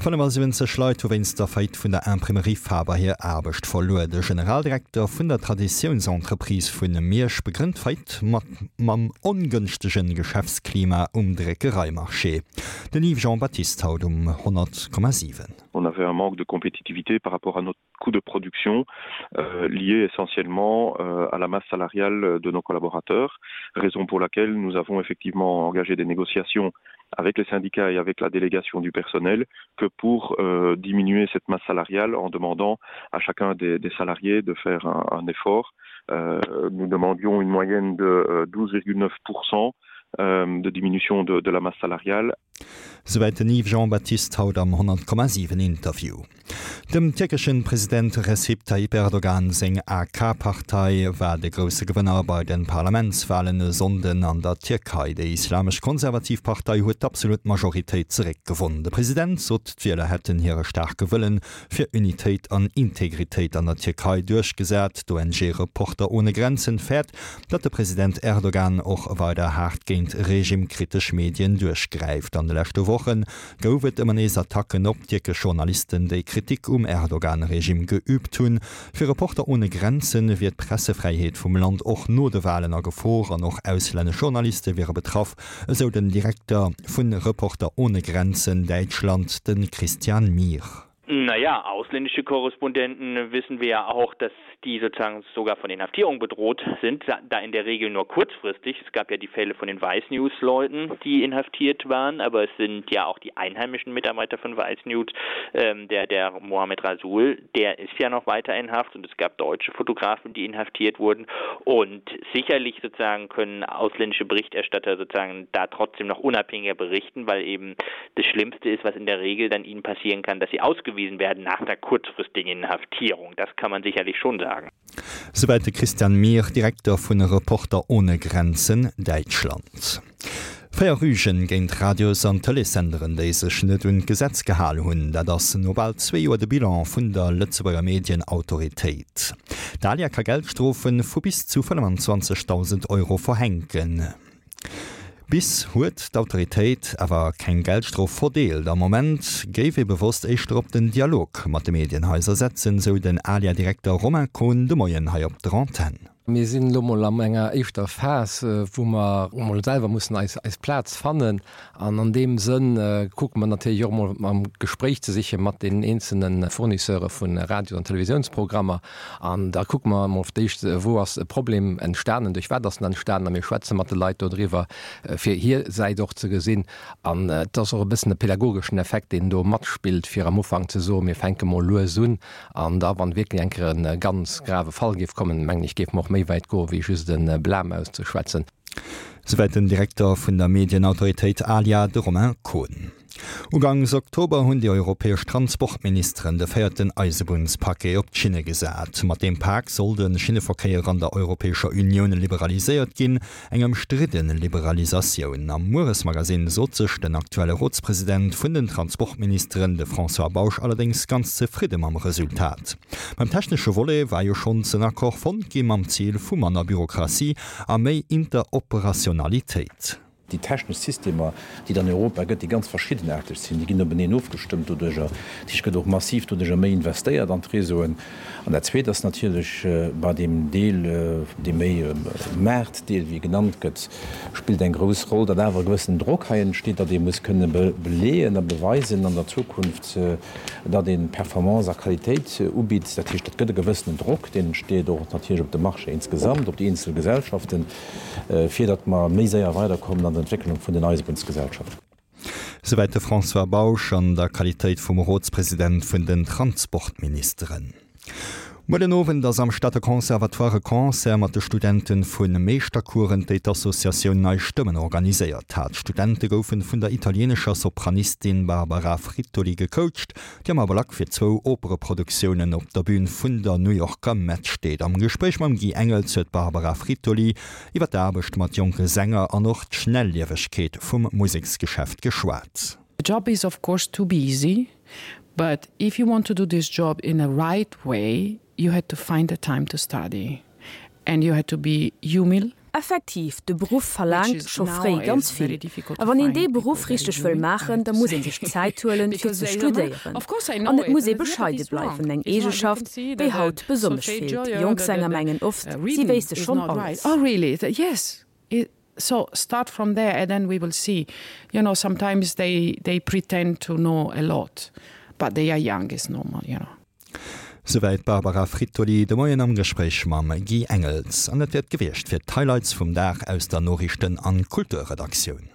75 Leit hu wéinst der Faillite vun der Imprimerie Faber hir Aarbecht verluer. De Generaldirekter vun der Traditiounsentreprise vu Miersch begrënnt d'Faillite mat mam ongënschtege Geschäftsklima um Dréckereimarché. Den Yves Jean Baptiste haut um 100,7. On avait un manque de compétitivité par rapport à notre coût de production euh, lié essentiellement euh, à la masse salariale de nos collaborateurs, raison pour laquelle nous avons effectivement engagé des négociations avec les syndicats et avec la délégation du personnel que pour euh, diminuer cette masse salariale en demandant à chacun des, des salariés de faire un, un effort. Euh, nous demandions une moyenne de 12,9 euh, euh, de diminution de, de la masse salariale. Souwäit den Yves Jean-Baptiste haut am 100,7 Interview. Dem tierkeschen President Recep Tayyip Erdogan seng AK-Partei war de grousse Gewënner bei de Parlamentswalen e Sonnden an der Tierkei. Déi islamesch konservativ Partei huet d'absolut Majoritéit zeréckgewonn. De President sot, d'Wieler hätten hire staarke Wëllen fir Unitéit an Integritéit an der Tierkei duerchgesat. D'ONG Reporter ohne Grenzen fäert, datt de President Erdogan och weider haart géint regimekritesch Medien duerchgräift. An de leschte Woche gouf et ëmmer nees Attacken op tierkesch Journalisten, déi Kritik um Erdogan-Regime geüübt hunn. Fir Reporter ohne Grenzen wier d'Pressefräiheet vum Land och no de Walen a Gefor an och auslännesch Journaliste wiere betraff, esou den Direkter vu Reporter ohne Grenzen Däitschland, de Christian Mihr. Naja, ausländische Korrespondenten wissen wir ja auch, dass die sozusagen sogar von Inhaftierung bedroht sind, da in der Regel nur kurzfristig. Es gab ja die Fälle von den Weißnews-Leuten, die inhaftiert waren, aber es sind ja auch die einheimischen Mitarbeiter von Weißnews, ähm, der, der Mohamed Rasul, der ist ja noch weiter in Haft und es gab deutsche Fotografen, die inhaftiert wurden. Und sicherlich sozusagen können ausländische Berichterstatter sozusagen da trotzdem noch unabhängiger berichten, weil eben das Schlimmste ist, was in der Regel dann ihnen passieren kann, dass sie ausgewiesen werden nach der kurzfristigen Inhaftierung. Das kann man sicherlich schon sagen. Souwäit de Christian Mihr, Direkter vun Reporter ohne Grenzen Däitschland. 4 Rügen géint Radios an Tëleessenderen, déi sech net un d'Gesetz gehal hunn, dat ass no bal zwee Joer de Bilan vun der Lëtzebuerger Medienautoritéit. D'ALIA ka Geldstrofe vu bis zu 25.000 Euro verhänken. Bis huet d'Autoritéit awer keng Geldstrof verdeelt. Am Moment géif ee bewosst éischter op den Dialog mat de Medienhaiser setzen, sou den ALIA-Direkter Romain Kohn de Moien hei op der Antenn. Mir sinn elo mol an enger éischter Phas, wou mer mol selwer mussen eis eis Plaz fannen. An an deem Sënn kucke mer natierlech och mol am Gespréich ze siche mat deenen eenzelne Fournisseure vu Radios an Televisiounsprogrammer. An da kucke mer emol fir d'éischt, wou ass e Problem entstanen, duerch wat ass en entstanen. A mir schwätze mat de Leit dodriwwer, fir hir Säit och ze gesinn. An et ass och e bëssen e pädagogeschen Effekt, deen do matspillt, fir am Ufank ze soen, mir fänke mol lues un. An da, wann wierklech eng Kéier e ganz grave Fall géif kommen, mengen ech, géife mer och méi wäit goen, wéi just e Blâme auszeschwätzen. Souwäit den Direkter vun der Medienautoritéit ALIA, de Romain Kohn. Ugangs Oktober hunn déi europäesch Transportministeren de véierten Eisebunnspaquet op d'Schinne gesat. Mat deem Pak soll de Schinneverkéier an der Europäescher Unioun liberaliséiert ginn. Eng ëmstridde Liberalisatioun. Am Mueresmagasinn sot sech den aktuelle Rotspresident vun den Transportministeren, de François Bausch, allerdéngs ganz zefridde mam Resultat. Beim technesche Volet war jo schonns en Accord fonnt gi mam Zil vu manner Bürokratie a méi Interoperationalitéit. Déi technesch Systemer, déi et an Europa gëtt, déi ganz verschiddenaarteg sinn, déi ginn openeen ofgestëmmt doduerjer. Dat heescht, et gëtt och massiv doduerjer méi investéiert an d'Réseauen. An dat Zweet ass natierlech bei deem Deel, dee méi Maartdeel, wéi e genannt gëtt, spillt eng grouss Roll, datt awer e gewëssenen Drock hei entsteet, datt ee muss kënne beleeën a beweisen an der Zukunft, datt ee Performance a Qualitéit ubitt. Dat heescht, et gëtt e gewëssenen Drock, deen entsteet och natierlech op de Marché insgesamt, op déi eenzel Gesellschaften. fir datt mer méi séier weiderkommen an der Entwécklung vun den Eisebunnsgesellschaften. Souwäit de François Bausch an der Qualitéit vum Rotspresident vun den Transportministeren. Muer den Owend ass am Stater Conservatoire e Concert mat de Studente vu Meeschtercoursen, déi d'Associatioun Nei Stëmmen organiséiert hat. D'Studente goufen vun der italienescher Sopranistin Barbara Frittoli gecoacht. déi am Ablack fir zwou Opereproduktiounen op der Bün vun der New Yorker Met steet. Am Gespréich mam Guy Engels huet d'Barbara Frittoli iwwer d'Aarbecht mat jonke Sänger an och d'Schnelliewegkeet vum Museksgeschäft geschwat. The job is of course too busy, but if you want to do this job in a right way, you had to find the time to study and you had to be humil. Effektiv, de Beruff verlaangt scho fréi ganz vill. A wann een dee Beruff richteg wëll maachen, da muss ee sech Zäit huelen, fir ze studéieren. An et muss ee bescheide bleiwen, eng Eegeschaft, déi haut besonnesch feelt. Jonk Sänger mengen oft, si wéisste schonn alles. Souwäit d'Barbara Frittoli de Moien am Gespréich mam Guy Engels. An dat wier et gewiescht fir d'Highlights vum Dag aus der Noriichten an Kulturredaktioun.